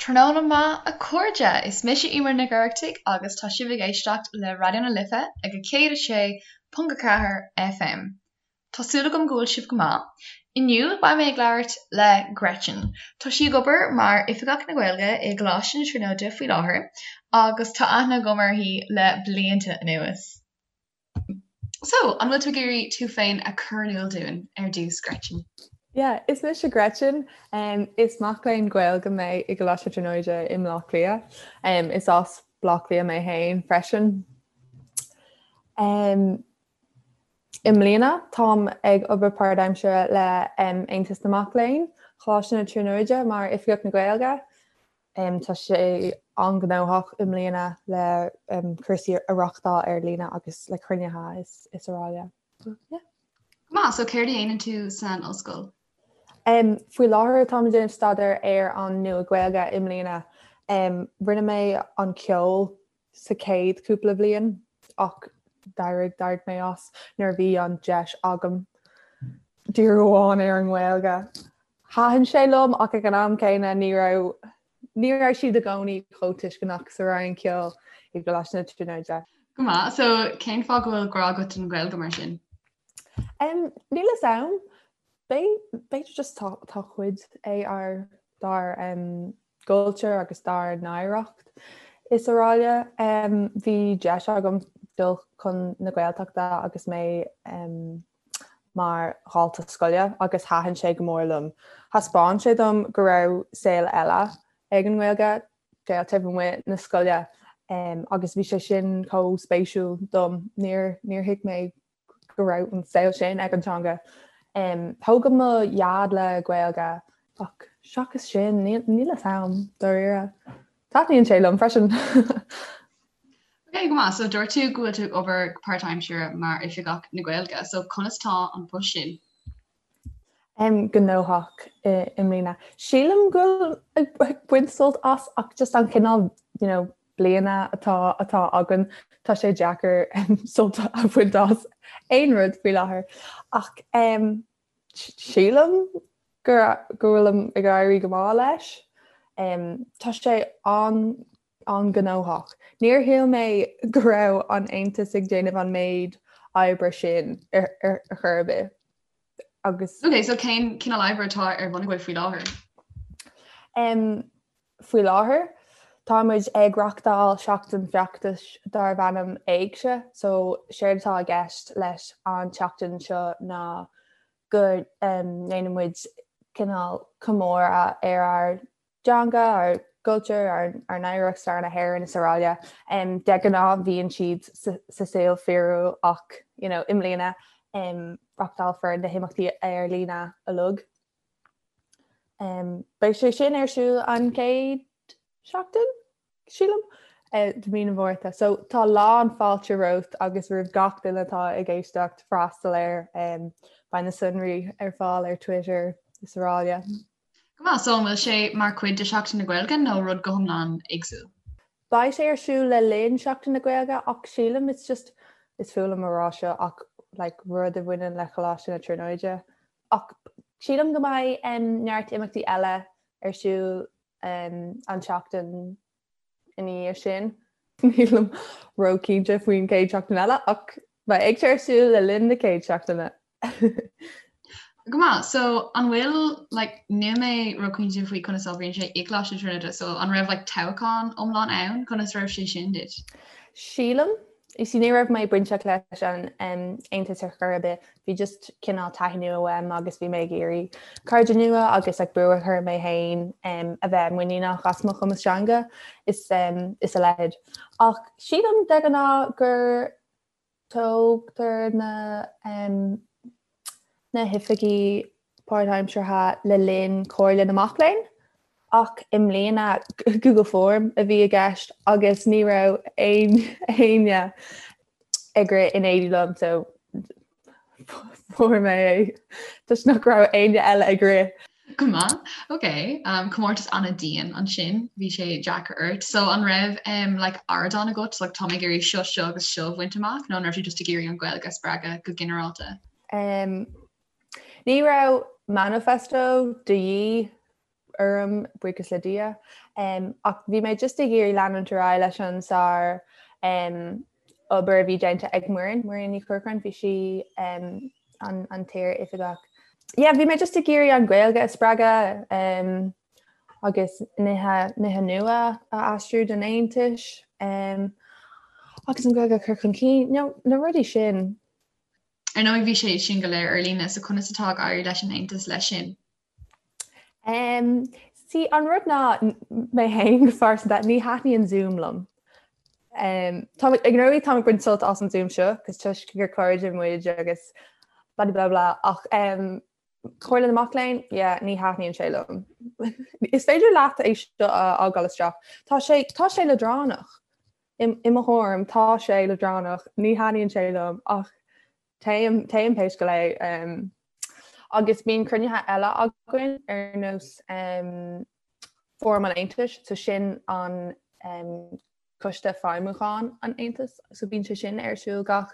Tráthnóna maith a chairde! Is mise Eimear Nic Oireachtaigh agus tá sibh ag éisteacht le Raidió na Life ag 106.4 FM. Tá súil agam go bhfuil sibh go maith. Inniu beidh mé ag labhairt le Gretchen. Tá sí ag obair mar Oifigeach na Gaeilge i gColáiste na Tríonóide faoi láthair agus tá aithne agam uirthi le blianta anuas. So, an bhfuil tú ag iarraidh tú féin a chur in iúl dúinn ar dtús, Gretchen? Yeah, is mise Gretchen. Is mac léinn Gaeilge mé i gColáiste na Tríonóide i mBleá Cliath. Is as Bleá Cliath mé féin freisin. I mbliana, táim ag obair páirtaimseartha le Aontas na Mac Léinn, Choláiste na Tríonóide mar Oifigeach na Gaeilge. Tá sé an-ghnóthach i mbliana le cúrsaí a reáchtáil ar líne agus le cruinnithe is araile. Go maith, so céard a dhéanann tú san ollscoil? Faoi láthair táim ag déanamh staidéar ar an Nua-Ghaeilge i mbliana. Rinne mé an ceol sa chéad cúpla bhliain ach d'éirigh d'éirigh mé as nuair a bhí an deis agam díriú amháin ar an nGaeilge. Thaitin sé liom ach ag an am céanna ní raibh ní raibh siad i gcónaí chomh tuisceanach sa Roinn Ceoil i gColáiste na Tríonóide. Go maith, so cén fáth go bhfuil grá agat don Ghaeilge mar sin? Um, níl fhios a'm. B'fhéidir just tá tá cuid é ár dár um, gcultúr agus dár n-oidhreacht is araile. Um, bhí deis agam dul chun na Gaeltachta agus mé um, mar dhalta scoile agus thaitin sé go mór liom. Thaispeáin sé dom go raibh saol eile ag an nGaeilge, saol taobh amuigh na scoile agus bhí sé sin chomh spéisiúil dom. Níor níor thuig mé go raibh an saol sin ag an teanga. Tógadh mo dhaid le Gaeilge ach seachas sin níl níl fhios a'm dáiríre. Taitníonn sé liom freisin. Ok, go maith. So dúirt tú go bhfuil tú ag obair go páirtaimseartha mar Oifigeach na Gaeilge, so conas tá an post sin? Em, gnóthach i i mbliana. Sílim go bhfuil ag baint sult as ach just an cineál you know, bliana atá atá againn, tá sé deacair sult a bhaint as aon rud faoi láthair. Ach em, sílim go go bhfuilim ag éirí go maith leis. Em, tá sé an an-ghnóthach. Níor shíl mé go raibh an Aontas ag déanamh an méid oibre sin ar chor ar bith agus. Ok, so cén cineál oibre atá ar bun agaibh faoi láthair? Um, faoi láthair, tá muid ag reachtáil seachtain feachtais darb ainm Éigse, so séard atá i gceist leis an tseachtain seo ná go ndéanann muid cineál comóradh ar ár dteanga, ár gcultúr, ár n-oidhreacht, stair na hÉireann is araile. De ghnáth bhíonn siad sa saol fíorúil ach you know, i mbliana reachtálfar na himeachtaí ar líne uilig. Beidh sé sin ar siúl an chéad seachtain? sílim, de mhí na Márta. So tá lán fáilte romhat agus roimh gach duine atá ag éisteacht freastal air. Beidh na sonraí ar fáil ar Twitter is araile. Go maith, so an bhfuil sé mar chuid de Sheachtain na Gaeilge nó rud go hiomlán éagsúil? Beidh sé ar siúl le linn Seachtain na Gaeilge ach sílim it's just, is fuath liom a rá seo ach like rud a bhaineann le Choláiste na Tríonóide. Ach sílim go mbeidh neart imeachtaí eile ar siúl an tseachtain ina dhiaidh sin. Nílim ró-chinnte faoin chéad seachtain eile ach beidh Éigse ar siúl le linn na chéad seachtaine. Go maith, so an bhfuil like níl mé ró-chinnte faoi conas a oibríonn sé i gColáiste na Tríonóide, so an raibh like toghchán iomlán ann? Conas raibh sé sin duit? Sílim You see, ní raibh mé bainteach leis an Aontas ar chor ar bith, bhí just cineál taithí nua uaim agus bhí mé ag iarraidh cairde nua agus like brú a chur mé féin a bheith muiníneach as mo chumas teanga is is a leithéid. Ach sílim de ghnáth gur toghtar na na hoifigigh páirtaimseartha le linn Comhairle na Mac Léinn ach i mbliana Google Form a bhí i gceist agus ní raibh aon éinne ag rith in éindí liom so fuair mé é toisc nach raibh éinne eile ag rith. Go maith, ok. Um, comórtas an-dian ansin, bhí sé deacair ort. So an raibh um, like, ardán agat, like, tá mé ag iarraidh seo seo agus seo a bhaint amach, nó an raibh tú just ag iarraidh an Ghaeilge a spreagadh go ginearálta? Um, ní raibh manifesto de dhíth. orm, buíochas le Dia. Ach bhí mé just ag iarraidh leanúint ar aghaidh leis an sár obair a bhí déanta ag Muireann, Muireann Ní Chorcráin, bhí sí an an t-iar-oifigeach. Yeah, bhí mé just ag iarraidh an Ghaeilge a spreagadh agus nithe nithe nua a aistriú don Aontas agus an Ghaeilge a chur chun cinn, you know, na rudaí sin. Ar ndóigh bhí sé sin go léir ar líne, so conas atá ag éirí leis an Aontas leis sin? Um, see, an rud ná mé féin go phearsanta, ní thaitníonn Zoom liom. Um, tá ag ndóigh táim ag baint sult as an Zoom seo, cos toisc gur cairde muid agus blah blah blah ach um, Comhairle na Mac Léinn, yeah, ní thaitníonn sé liom. Is féidir leat é seo a fhágáil isteach. Tá sé tá sé leadránach. I mo thuairim tá sé leadránach, ní thaitníonn sé liom ach téim téim pé scéal é. Agus bíonn cruinnithe eile againn ar nós Fóram an Aontais, so sin an Coiste Feidhmiúcháin an Aontais, so bíonn sé sin ar siúl gach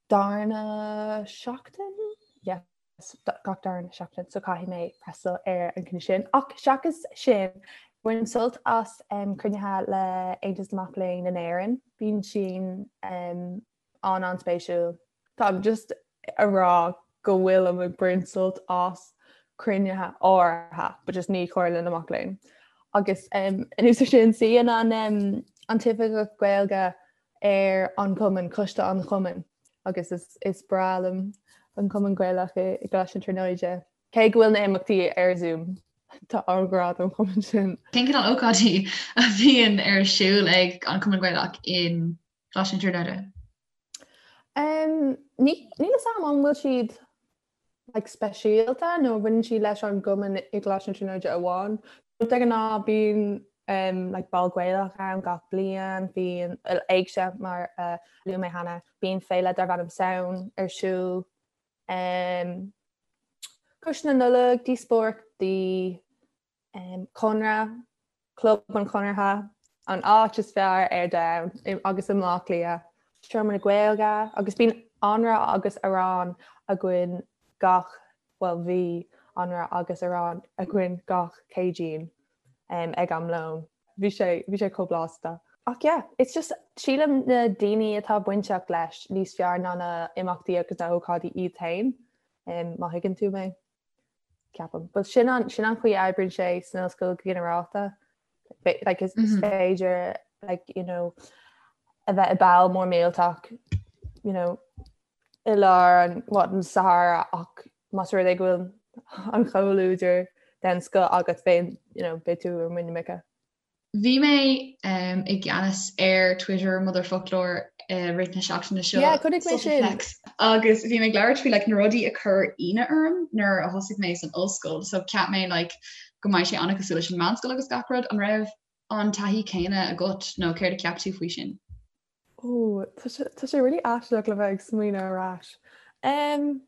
darna seachtain? Yes. gach darna seachtain so caithfidh mé freastal ar an gcruinniú sin. Ach seachas sin, bainim sult as cruinnithe le Aontas na Mac Léinn in Éirinn. Bíonn sin an-an-spéisiúil. Táim just a rá go bhfuilim ag baint sult as cruinnithe áirithe, but just ní Comhairle na Mac Léinn. Agus anuas air sin, suíonn an an tOifigeach Gaeilge ar an gcumann, coiste an chumainn, agus is is breá liom an Cumann Gaelach i gColáiste na Tríonóide. Cé go bhfuil na himeachtaí ar Zoom, tá an-ghrá don chumann sin. Cén cineál ócáidí a bhíonn ar siúl ag an Cumann Gaelach in Coláiste na Tríonóide? Um, ní níl a fhios agam an bhfuil siad like, speisialta nó bhaineann siad leis an gcumann i gColáiste na Tríonóide amháin. De ghnáth bíonn um, like, ball Gaelach ann gach bliain, bíonn éigse mar uh, luaigh mé cheana, bíonn féile darb ainm Samhain ar siúl. Um, Coiste na Nollag, díospóireachtaí, um, Conradh, Club an Chonartha, an áit is fearr ar domhan agus i mBleá Cliath. Seomra na Gaeilge agus bíonn anraith agus arán againn gach, bhuel bhí anraith agus arán againn gach Céadaoin um, ag am lóin. Bhí sé, bhí sé chomh blasta. Ach yeah, it's just sílim na daoine atá bainteach leis níos fearr ná na imeachtaí agus na hócáidí iad féin, um, má thuigeann tú mé. Ceapaim. But sin an sin an chaoi a oibríonn sé san ollscoil go ginearálta. Like is mm -hmm. féidir like you know a bheith i ball mór millteach you know i lár an what an Sahara ach más rud é go bhfuil an comhluadar den scoth agat féin you know beidh tú ar muin na muice. Bhí mé i gceannas ar Twitter Motherfoclóir i rith na seachtaine seo. Yeah, chonaic mé sin. Agus bhí mé ag labhairt faoi like, na rudaí a chuir ionadh orm nuair a thosaigh mé san ollscoil. So cheap mé like, go mbeidh sé an-chosúil leis an meánscoil agus gach rud. An raibh an taithí céanna agat nó céard a cheap tú faoi sin? Ó, tá sé, tá sé really aisteach le bheith ag smaoineamh ar ais. Um,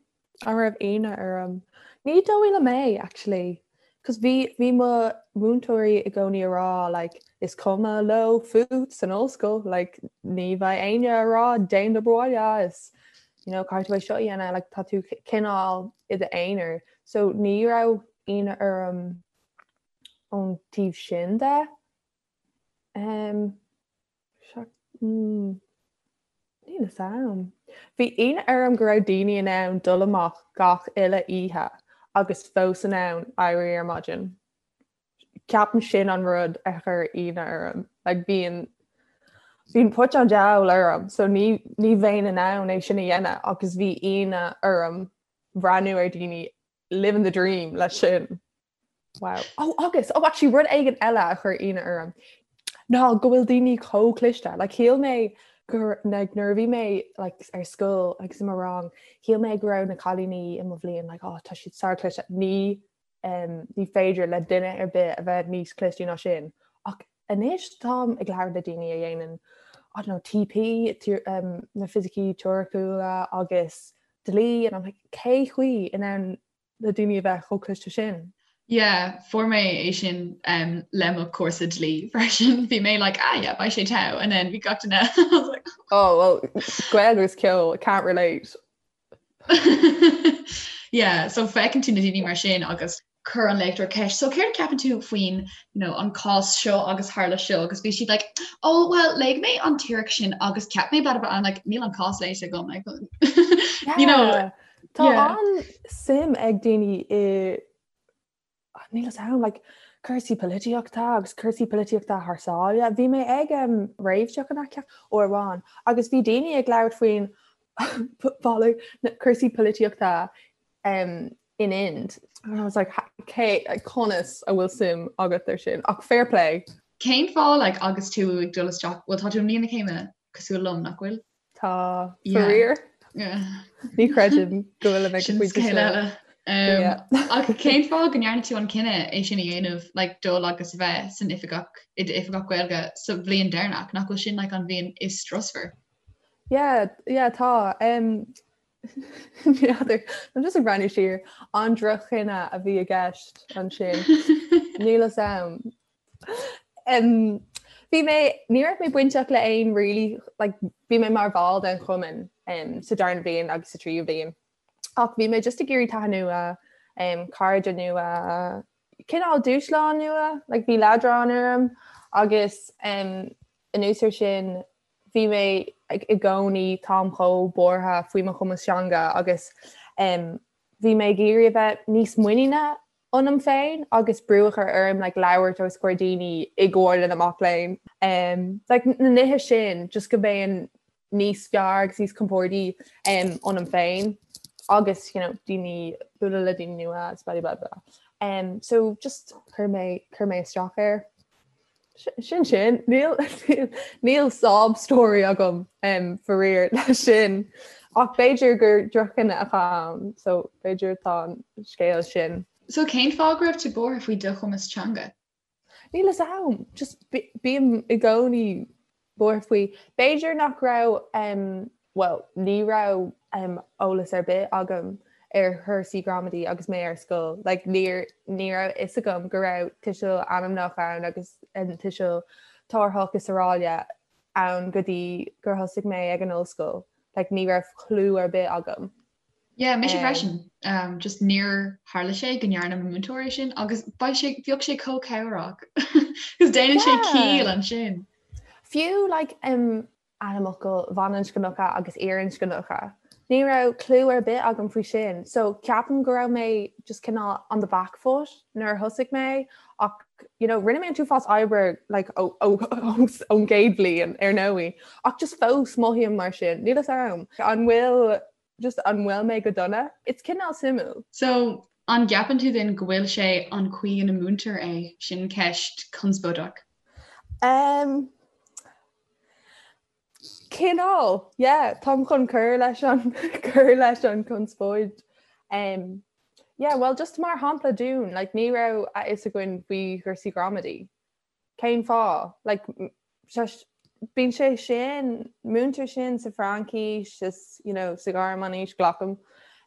an raibh ionadh orm? Ní dóigh liom é, actually. Cos bhí, bhí mo mhúinteoirí i gcónaí a rá, like, is cuma leo fút san ollscoil, like, ní bheidh éinne a rá déan d'obair bhaile, is, you know, caithfidh tú é seo a dhéanamh, like, tá tú cineál i d'aonar. So ní raibh ionadh orm ón taobh sin de. Um, Níl a fhios a'm. Bhí ionadh orm go raibh daoine in ann dul amach gach uile oíche agus fós in ann éirí ar maidin. Ceapaim sin an rud a chuir ionadh orm. Like bíonn bíonn put an diabhail orm so ní ní bheinn in ann é sin a dhéanamh agus bhí ionadh orm breathnú ar daoine living the dream leis sin. Wow. Oh, agus, oh, actually, rud éigin eile a chuir ionadh orm ná go bhfuil daoine chomh cliste. Like, shíl mé gur like, nuair a bhí mé like, ar scoil agus i mo rang, shíl mé go raibh na cailíní i mo bhliain like, oh, tá siad sár-chliste. Ní, um, ní féidir le duine ar bith a bheith níos clistí ná sin. Ach anois táim ag labhairt le daoine a dhéanann I don't know, TP, um, na fisicí teoiriciúla agus dlí, and I'm like, cé chaoi in ann le daoine a bheith chomh cliste sin. Yeah, fuair mé é sin um, le mo cúrsa dlí freisin. Bhí mé like, ah yeah, beidh sé togha, and then bhí gach duine I was like, Oh, well, Gaeilge agus ceol, can't relate. Yeah, so feiceann tú na daoine mar sin agus. Chuir an léachtóir ceist, so céard a ceapann tú faoin you know, an cás seo agus tharla seo agus bhí siad like, oh well léigh mé an teoiric sin agus ceap mé blah blah blah like níl an cás léite agam like, you know. Tá yeah. an-suim ag daoine i níl a fhios agam like cúrsaí polaitíochta agus cúrsaí polaitíochta thar sáile. Bhí mé ag um, réamhtheach an aice uair amháin agus bhí daoine ag labhairt faoin cúrsaí polaitíochta um, in Ind. And I was like, cé, conas a bhfuil suim agat ar sin? Ach fair play. Cén fáth like, agus tú ag dul isteach, bhuel tá tú i mbliain na céime cosúil liom, nach bhfuil? Tá, faraor. Yeah. Ní chreidim go bhfuil mé Sin scéal eile. Um, ach cén fáth go ndearna tú an cinneadh é sin a dhéanamh like, dul agus a bheith san oifigeach i d'oifigeach Gaeilge sa bhliain deireanach, nach bhfuil sin like, an bhliain is strusmhar? Yeah, yeah, tá. Um, N'fheadar, I'm just ag breathnú siar, an droch-chinneadh a bhí i gceist ansin. Níl a fhios agam. Bhí mé, ní raibh mé bainteach le aon really, like, bhí mé mar bhall den chumann um, sa darna bliain agus sa tríú bliain. Ach bhí mé just ag iarraidh taithí nua, um, cairde nua, cineál dúshlán nua, like, bhí leadrán orm agus um, anuas ar sin bhí mé i gcónaí, táim chomh buartha faoi mo chumas teanga agus bhí mé ag iarraidh a bheith níos muiníne ionam féin agus brú a chur orm like labhairt os comhair daoine i gComhairle na Mac Léinn. Like na nithe sin just go mbeinn níos fearr agus níos compordaí ionam féin agus you know daoine bualadh le daoine nua agus blah blah blah. Um, so just chuir mé chuir mé isteach air. Sin sin, níl níl sob story agam um, faraor leis sin. Ach b'fhéidir gur droch-chinneadh atá ann, so b'fhéidir tá an scéal sin. So cén fáth go raibh tú buartha faoi do chumas teanga? Níl a fhios agam, just bím i gcónaí buartha faoi. B'fhéidir nach raibh, bhuel, ní raibh eolas ar bith agam ar chúrsaí gramadaí agus mé ar scoil. Like, níor, ní raibh fhios agam go raibh tuiseal ainmneach ann agus tuiseal tabharthach is araile ann go dtí gur thosaigh mé ag an ollscoil. Like, ní raibh clue ar bith agam. Yeah, mise freisin. Um, just níor tharla sé go ndearna mo mhúinteoir é sin agus beidh sé bheadh sé chomh cabhrach. Cos déanann sé ciall ansin. Fiú like, um, ainmfhocail bhaininscneacha agus fhirinscneacha. Ní raibh clue ar bith agam faoi sin. So ceapaim go raibh mé just cineál on the back foot nuair a thosaigh mé ach you know, rinne mé an t-uafás oibre like, ón gcéad bhliain ar ndóigh ach just fós mothaím mar sin. Níl a fhios agam. An bhfuil Just an bhfuil mé go dona? It's cineál suimiúil. So, an gceapann tú then go bhfuil sé an chaoi ina múintear é? Sin ceist conspóideach. Um, cineál, yeah, táim chun cur leis an cur leis an conspóid. Um, yeah, well, just mar shampla dúinn, like, ní raibh a fhios againn faoi chúrsaí gramadaí. Cén fáth? Like, bíonn sé sin, múintear sin sa Fhraincis is, you know, sa Ghearmáinis, glacaim.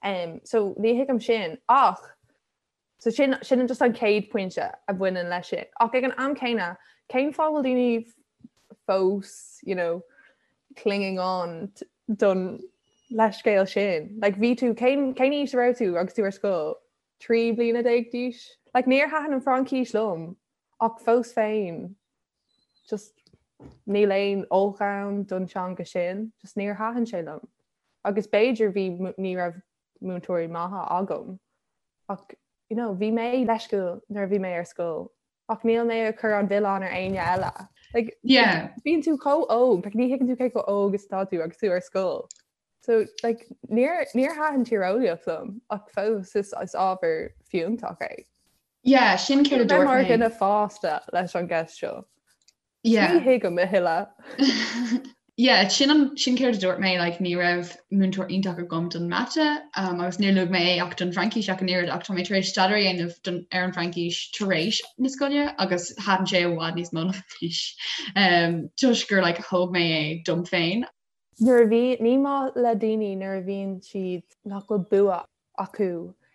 Um, so ní thuigim sin ach so sin, sin just an chéad pointe a bhaineann leis sin. Ach ag an am céanna, cén fáth bhfuil daoine fós, you know, clinging on don leithscéal sin? Like, bhí tú, cén, cén aois a raibh tú agus tú ar scoil? 13 bliana d'aois? Like, níor thaitin an Fhraincis liom. Ach fós féin, just níl aon olc ann don teanga sin, just níor thaitin sé liom. Agus b'fhéidir bhí, ní raibh múinteoirí maithe agam, ach you know, bhí mé leisciúil nuair a bhí mé ar scoil, ach níl mé ag cur an mhilleán ar éinne eile. Like, yeah. bíonn tú chomh óg, like, ní thuigeann tú cé chomh óg is atá tú agus tú ar scoil. So, like, níor, níor thaitin tíreolaíocht liom, ach fós is, is ábhar fiúntach é. Yeah, sin céard a dúirt mé. Mar dhuine fásta leis an gceist seo. Yeah. Ní thuigim a thuilleadh. Yeah, sin an sin céard a dúirt mé, like, ní raibh múinteoir iontach agam don mata um, agus níor luaigh mé é ach don Fhraincis ach an oiread ach tá mé tar éis staidéar a dhéanamh don, ar an Fhraincis tar éis na scoile agus thaitin sé i bhfad níos mó liom anois um, toisc gur like, thóg mé é dom féin. Nuair a bhí, ní maith le daoine nuair a bhíonn siad nach bhfuil bua acu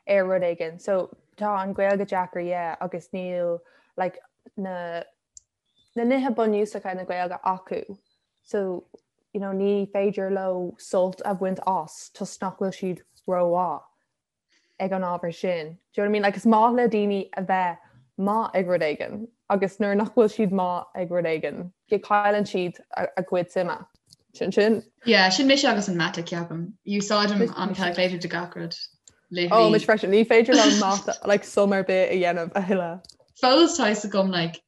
ar rud éigin. So tá an Ghaeilge deacair yeah agus níl like na na nithe bunúsacha na Gaeilge acu. So you know ní féidir leo sult a bhaint as toisc nach bhfuil siad rómhaith. ag an ábhar sin. Do you know what I mean? Like is maith le daoine a bheith maith ag rud éigin agus nuair nach bhfuil siad maith ag rud éigin, cailleann siad a gcuid suime. Sin sin. Yeah, sin mise agus an mata ceapaim. Úsáidim an calculator do gach rud. Oh, mise freisin, ní féidir liom mata like sum ar bith a dhéanamh a thuilleadh. Fós tá fhios agam like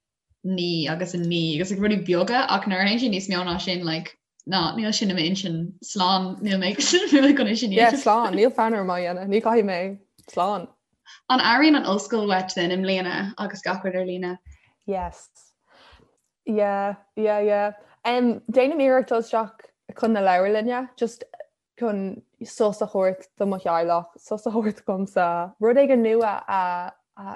9 agus 9 agus like rudaí beaga ach nuair a théann sé níos mó ná sin like ná níl sin i m'intinn slán níl mé níl mé chun é sin Yeah, slán, níl fonn orm á dhéanamh, ní chaithfidh mé slán. An airíonn an ollscoil uait then i mbliana agus gach rud ar líne? Yes. Yeah, yeah, yeah. Um, déanaim iarracht dul isteach chun na leabharlainne, just chun sos a thabhairt do mo theaghlach, sos a thabhairt domsa, rud éigin nua a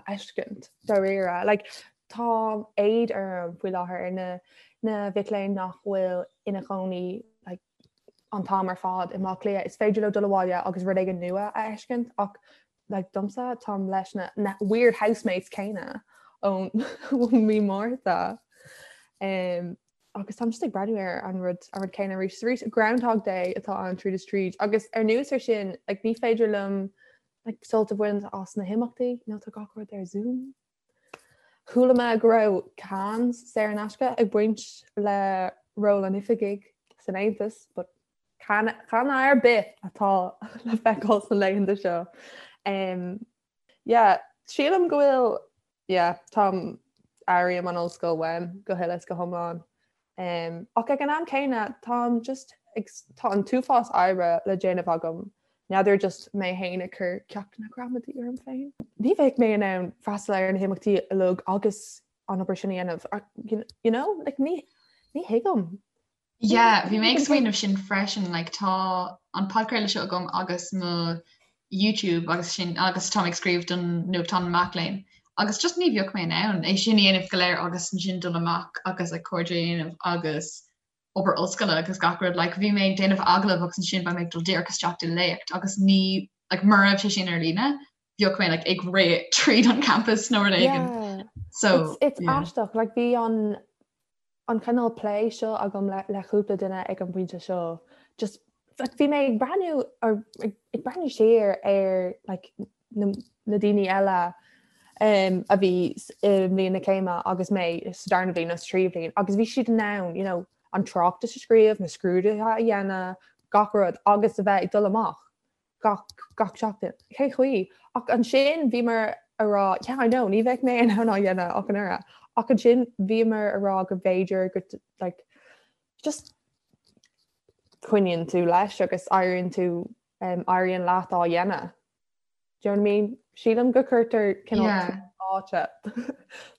fheiscint dáiríre. Like, tá éad orm faoi láthair ar na na mhic léinn nach bhfuil ina chónaí like, an t-am ar fad i mBaile Átha Cliath. Is féidir leo dul abhaile agus rud éigin nua a fheiscint ach like, domsa táim leis na, na weird housemates céanna ón mí Márta. Um, agus táim just ag breathnú ar an rud an rud céanna arís is arís. Groundhog Day atá ann tríd is tríd agus anuas ar sin like, ní féidir liom like, sult a bhaint as na himeachtaí nó tá gach rud ar Zoom. Chuala mé go raibh cans saor in aisce ag baint le ról an oifigigh san Aontas, but can can ar bith atá le feiceáil sna laethanta seo. Um, yeah, sílim go bhfuil yeah, táim airím an ollscoil uaim go huile is go hiomlán. Um, ach ag an am céanna táim just ag, tá an t-uafás oibre le déanamh agam. N'fheadar just mé féin ag cur ceachtanna gramadaí orm féin. Ní bheidh mé in ann freastal ar na himeachtaí uilig agus an obair sin a dhéanamh. You know, like, ní, ní thuigim. Yeah, bhí mé ag smaoineamh sin freisin, like tá an podchraoladh seo agam agus mo YouTube agus sin agus táim ag scríobh don nuachtán mac léinn agus just ní bheadh mé in ann é sin a dhéanamh go léir agus ansin dul amach agus like cairde a dhéanamh agus obair ollscoile agus gach rud like bhí mé ag déanamh agallamh agus ansin beidh mé ag dul díreach isteach i léacht agus ní like mura raibh sé sin ar líne bheadh mé like ag rith tríd an campus nó rud éigin. Yeah. So it's, it's yeah. aisteach like bhí an an cineál plé seo agam le cúpla duine ag an bpointe seo. Just like bhí mé ag breathnú or ag breathnú siar ar like na na daoine eile um a bhí i mbliain na céime agus mé sa darna bhliain nó sa tríú bhliain agus bhí siad in ann you know an tráchtas a scríobh, na scrúduithe a dhéanamh, gach rud agus a bheith ag dul amach. gach gach seachtain. Cén chaoi? Ach ansin bhíomar a rá yeah I know ní bheidh mé in ann á dhéanamh ach an oiread. Ach ansin bhíomar a rá go mb'fhéidir go like just coinníonn tú leis agus éiríonn tú um, éiríonn leat á dhéanamh. Do you know what I mean? Sílim go cuirtear cineál yeah. áite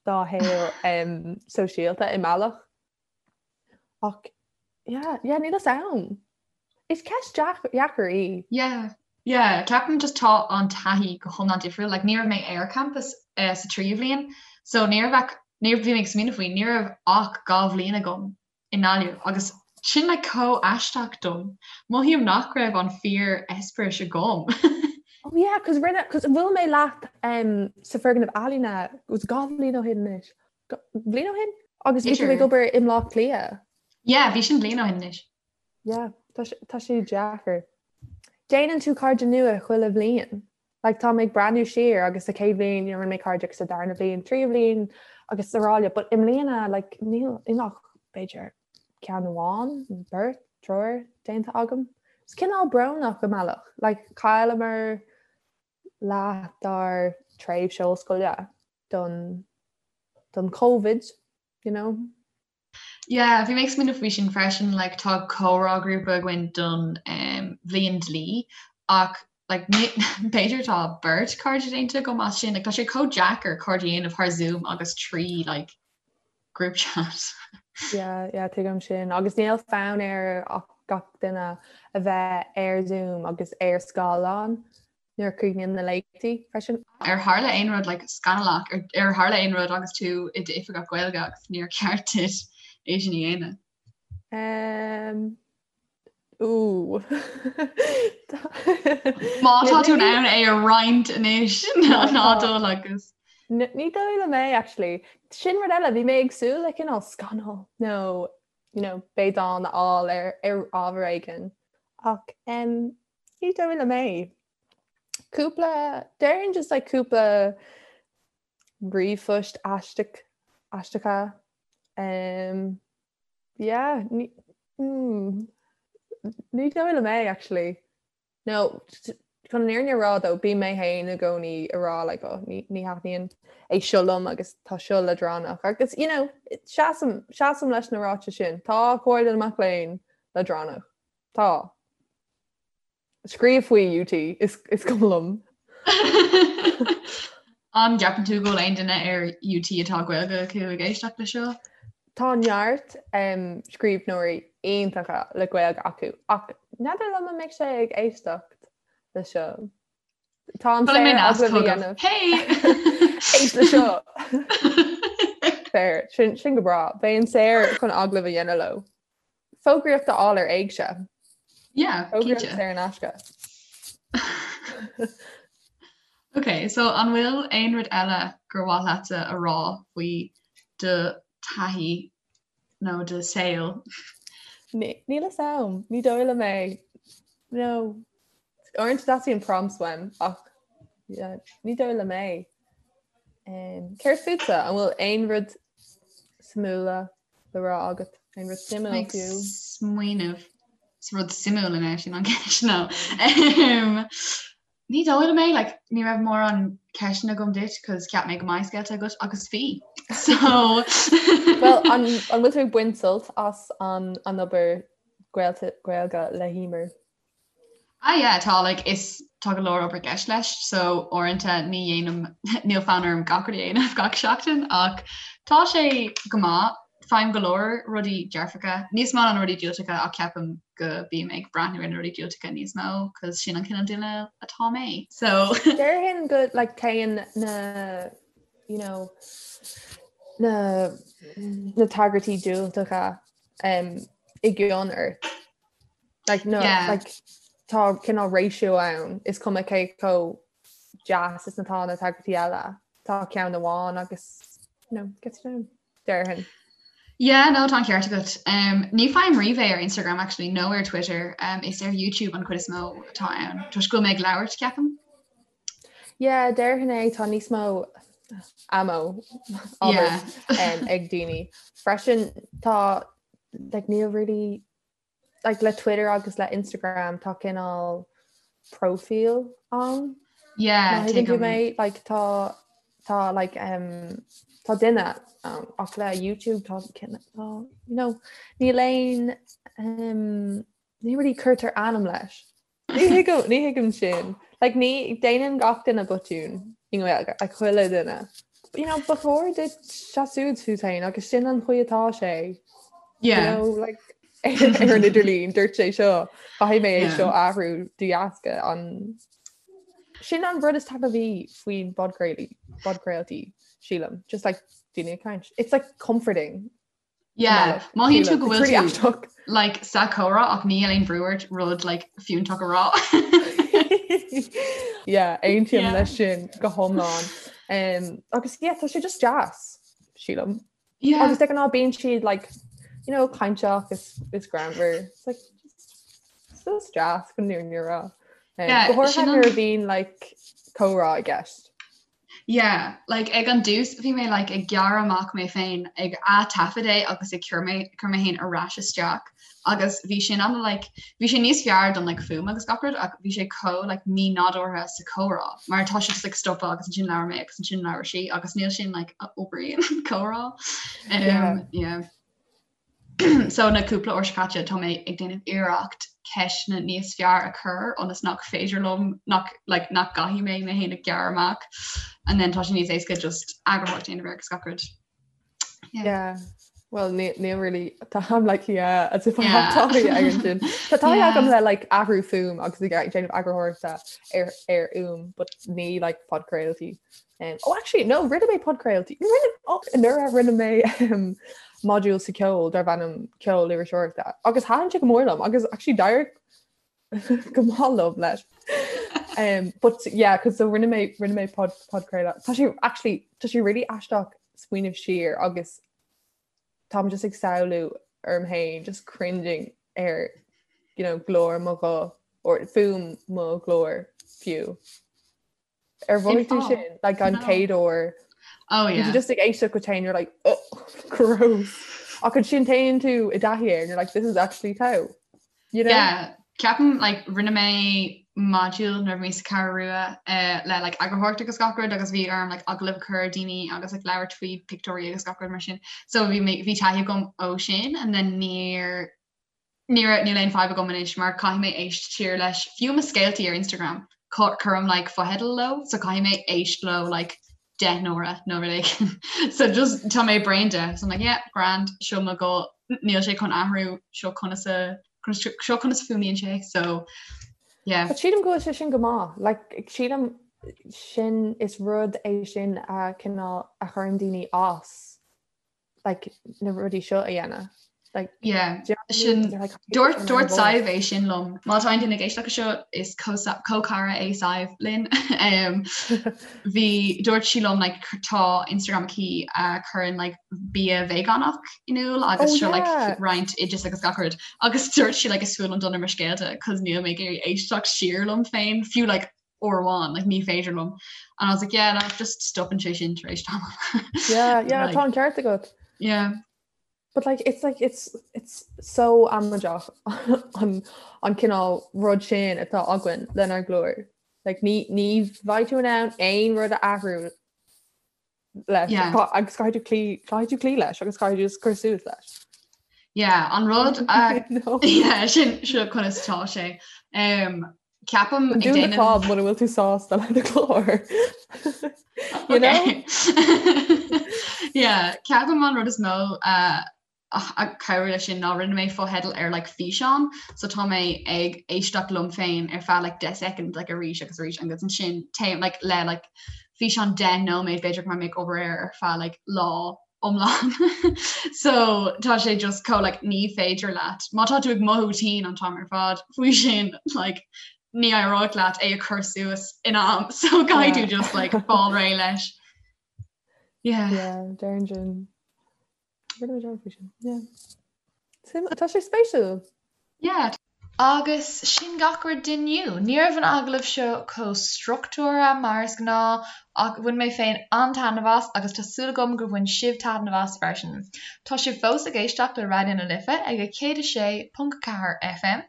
do shaol um, sóisialta i mbealach. Ach yeah, yeah, níl fhios a'm. Is ceist dheacair í. Yeah, yeah, ceapaim just tá an taithí go hiomlán difriúil, like ní raibh mé ar campus uh, sa tríú bhliain, so ní raibh ach, ní bhí mé ag smaoineamh faoi, ní raibh ach 2 bhliain agam i nGaillimh agus sin like chomh aisteach dom. Mothaím nach raibh an fíor eispéireas agam. Oh yeah, cos rinne, cos bhuail mé leat um, sa foirgneamh ealaíne, was 2 bhliain ó shin anois. Bliain ó shin? Agus bhí tú ag obair i mBleá Cliath. Yeah, bhí sin bliain ó shin anois. Yeah, tá sé deacair. Déanann tú cairde nua chuile bhliain. Like tá mé ag breathnú siar agus sa chéad bhliain you know, rinne mé cairde agus sa darna bhliain, tríú bhliain agus araile, but i mbliana like níl níl ach b'fhéidir ceann amháin, beirt, triúr déanta agam. Is cineál brónach i mbealach. Like chailleamar leath dár tréimhse ollscoile don don Covid, you know. Yeah, bhí mé ag smaoineamh faoi sin freisin, like tá comhrá grúpa againn don um, bhliain dlí ach like b'fhéidir tá beirt cairde déanta agam as sin, like tá sé chomh deacair cairde a dhéanamh thar Zoom agus trí like group chat. Yeah, yeah, tuigim sin. Agus níl fonn ar ach gach duine a bheith ar Zoom agus ar scáileán nuair a chríochnaíonn na léachtaí freisin. Ar tharla aon rud like scannalach, ar ar tharla aon rud agus tú i d'oifigeach Gaeilge agus níor cheart duit é sin a dhéanamh? Um, Ooh. Má tá tú in ann é a roinnt anois ná dul agus. Ní dóigh liom é actually. Sin rud eile, bhí mé ag súil le cineál scannal nó you know, béadán a fháil ar ar ábhar éigin. Ach um, ní dóigh liom é. Cúpla, déarfainn just like cúpla ríomhphoist aisteach, aisteacha. Um, yeah, ní, mm, ní dóigh liom é actually. No, chun an fhírinne a rá though, bím mé féin i gcónaí ag rá like oh ní ní thaitníonn é seo liom agus tá seo leadránach agus you know, seasaim, seasaim leis na ráitis sin. Tá Comhairle na Mac Léinn leadránach. Tá. Scríobh faoi UT, is is cuma liom. An gceapann tú go bhfuil aon duine ar UT atá Gaeilge acu ag éisteacht le seo? Tá neart scríbhneoirí iontacha le Gaeilge acu ach n'fheadar liom an mbeidh sé ag éisteacht le seo. Tá an saor agallamh a dhéanamh. Hey! Éist le seo! Fair, sin sin go breá. Bheinn saor chun agallamh a dhéanamh leo. Fógraíocht a fháil ar Éigse. Yeah, Fógraíocht saor in aisce. Ok, so an bhfuil aon rud eile gur mhaith leatsa a rá faoi do taithí nó do saol? Níl a fhios a'm, ní dóigh liom é. No. Uaireanta teastaíonn prompts uaim ach yeah, ní dóigh liom é. Um, céard fútsa? An bhfuil aon rud suimiúla le rá agat? Aon rud suimiúil fiú? Smaoineamh. Is rud suimiúil in sin an ceist nó. Ní dóigh liom é, like, ní raibh mórán ceisteanna agam duit cos cheap mé go mbeadh scéalta agat agus bhí. So Well, an, an bhfuil tú ag baint sult as an, an obair Gaeilge le hEmer? Ah yeah, tá like is tá go leor obair i gceist leis so uaireanta ní dhéanaim níl fonn orm gach rud a dhéanamh gach seachtain ach tá sé go maith, faighim go leor rudaí dearfacha, níos mó ná na rudaí diúltacha ach ceapaim go bím ag breathnú ar na rudaí diúltacha níos mó cos sin an cineál duine atá mé so. Déarfainn go like téann na you know na na tagairtí diúltacha um, i gcion ort. Like, no, yeah. like, tá cineál ratio ann is cuma cé chomh deas is atá na tagairtí eile. Tá ceann amháin agus you know, gets down déarfainn. Yeah, no, tá an ceart agat. Um, ní fhaighim riamh é ar Instagram actually, nó ar Twitter. Um, is ar YouTube an chuid is mó atá ann. Toisc go bhfuil mé ag labhairt ceapaim. Yeah, déarfainn é tá níos mó ammo yeah. um, ag daoine. Freisin tá like, níl really like le Twitter agus le Instagram tá cineál profile ann. Yeah, Má thuigeann tú mé like tá tá like um, tá duine ann ach le YouTube tá tá you know níl aon um, ní really cuirtear ainm leis. Ní thuigim, ní thuigim sin. Like, ní, déanann gach duine botún i nGaeilge, like, chuile duine. You know, ba chóir duit seasamh fút féin agus sin an chaoi atá sé. Yeah. You know, like, ar an idirlíon, dúirt sé seo, caithfidh mé é seo a athrú de dheasca an Sin an rud is taitneamhaí faoin bpodchraolaí, podchraoltaí, sílim. Just like daoine ag caint. It's like comforting. Yeah, mothaíonn tú go bhfuil tú like sa chomhrá ach níl aon bhrú ort rud like fiúntach a rá. Yeah, aontaím leis sin go hiomlán. Um, agus yeah, tá sé just deas, sílim. Yeah. Agus de ghnáth bíonn siad like, you know, cainteach is, is greannmhar. It's like, just, just deas go ndúnn rá. Um, yeah, go háirithe nuair a bhíonn like comhrá i gceist. Yeah, like ag an dtús bhí mé like ag gearradh amach mé féin ag ath-taifead é agus ag cur mé cur mé féin ar ais isteach agus bhí sin an like bhí sé níos fearr don like fuaim agus gach rud ach bhí sé chomh like mí-nádúrtha sa chomhrá mar tá sé just like stopadh agus ansin labhair mé agus ansin labhair sí agus níl sin like a oibríonn comhrá. Um, yeah. yeah. So na cúpla uair seo caite tá mé ag déanamh iarracht ceisteanna níos fearr a chur ionas nach féidir liom nach like nach gcaithfidh mé mé féin a ghearradh amach and then tá sé níos éasca just eagarthóireacht a dhéanamh air agus gach rud. Yeah. Yeah. Well, ní ní really tá like yeah, as if I have taithí ar sin. Tá taithí agam le like athrú fuaim agus ag déanamh eagarthóireachta ar ar fhuaim, but ní like podchraoltaí. Um, oh actually no rinne mé podchraoltaí rinne oh, nuair a rinne mé um, modúl sa ceol darb ainm ceol iriseoireachta agus thaitin sé go mór liom agus actually d'éirigh go maith liom leis. Um, but yeah, cos so rinne mé rinne mé pod podchraoladh. Tá sé actually tá sé really aisteach smaoineamh siar agus táim just ag samhlú orm féin just cringing ar you know, glór mo ghuth or fuaim mo ghlóir fiú. Ar mhothaigh tú sin like an chéad uair? Oh yeah. You're just ag éisteacht go féin you're like oh gross. Ach ansin téann tú i dtaithí air and you're like this is actually togha. You know? Yeah. Ceapaim like rinne mé module nuair a bhí mé sa Cheathrú Rua uh, le like eagarthóireacht agus gach rud agus bhí orm like agallamh a chur ar daoine agus like labhairt faoi pictiúirí agus gach rud mar sin. So bhí mé bhí taithí agam ó sin and then níor Ní raibh, níl aon fadhb agam anois mar caithfidh mé éist siar leis, fiú mo scéaltaí ar Instagram, cuirim like fotheidil leo so caithfidh mé éist leo like 10 n-uaire nó rud éigin. So just tá mé bréan de, so I'm like yeah, grand, seo mo ghuth, níl sé chun athrú, seo conas a, seo conas a fuaimníonn sé, so yeah. But sílim go bhfuil sé sin go maith, like sílim sin is rud é sin a cineál a chuireann daoine as. like na rudaí seo a dhéanamh. Like, yeah. Sin dúirt dúirt Sadhbh é sin liom. Má tá aon duine ag éisteacht leis seo is comhchara é Sadhbh linn. um, bhí dúirt sí liom like, tá Instagram aici a chuireann like, bia veigeánach in iúl agus oh, seo like, roinnt oideas agus gach rud. Agus dúirt sí like, is fuath liom dul ar mo scéalta cos níl mé ag iarraidh éisteacht siar liom féin fiú like, uair amháin, like, ní féidir liom. And I was like, yeah, no, just stopann sé sin tar éis tamall. Yeah, yeah, like, tá an ceart agat. Yeah. But like, it's like, it's, it's so amaideach an, an cineál rud sin atá againn lenár nglór. Like, ní, ní bheidh tú in ann aon rud a athrú leis yeah. agus caithfidh tú cloí caithfidh tú cloí leis agus caithfidh tú cur suas leis. Yeah, an rud uh, yeah, sin seo conas tá sé. Um, ceapaim ag déanamh fáth muna bhfuil tú sásta le do ghlór. You know? Yeah, ceapaim an rud is mó uh, a chabhraigh leis sin ná rinne mé fotheidil ar like físeán so tá mé ag éisteacht liom féin ar feadh like 10 soicind like arís agus arís agus ansin téim like le like físeán 10 nóiméad b'fhéidir go mbeidh mé ag obair air ar feadh like lá iomlán so tá sé just chomh like ní féidir leat má tá tú ag mothú tinn an t-am ar fad faoi sin like ní éireoidh leat é a chur suas in am so caithfidh tú just like fáil réidh leis. Yeah. Yeah, deireann sin. Tá sé spéisiúil. Yeah. Agus sin gach rud d'inniu. Ní raibh an agallamh seo chomh struchtúrtha mar is gnáth ach bhain mé féin an-taitneamh as agus tá súil agam gur bhain sibh taitneamh as freisin. Tá sibh fós ag éisteacht le Raidió na Life ag 106.4 FM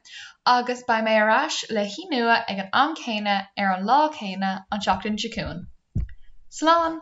agus beidh mé ar ais le haoi nua ag an am céanna ar an lá céanna an tseachtain seo chugainn. Slán!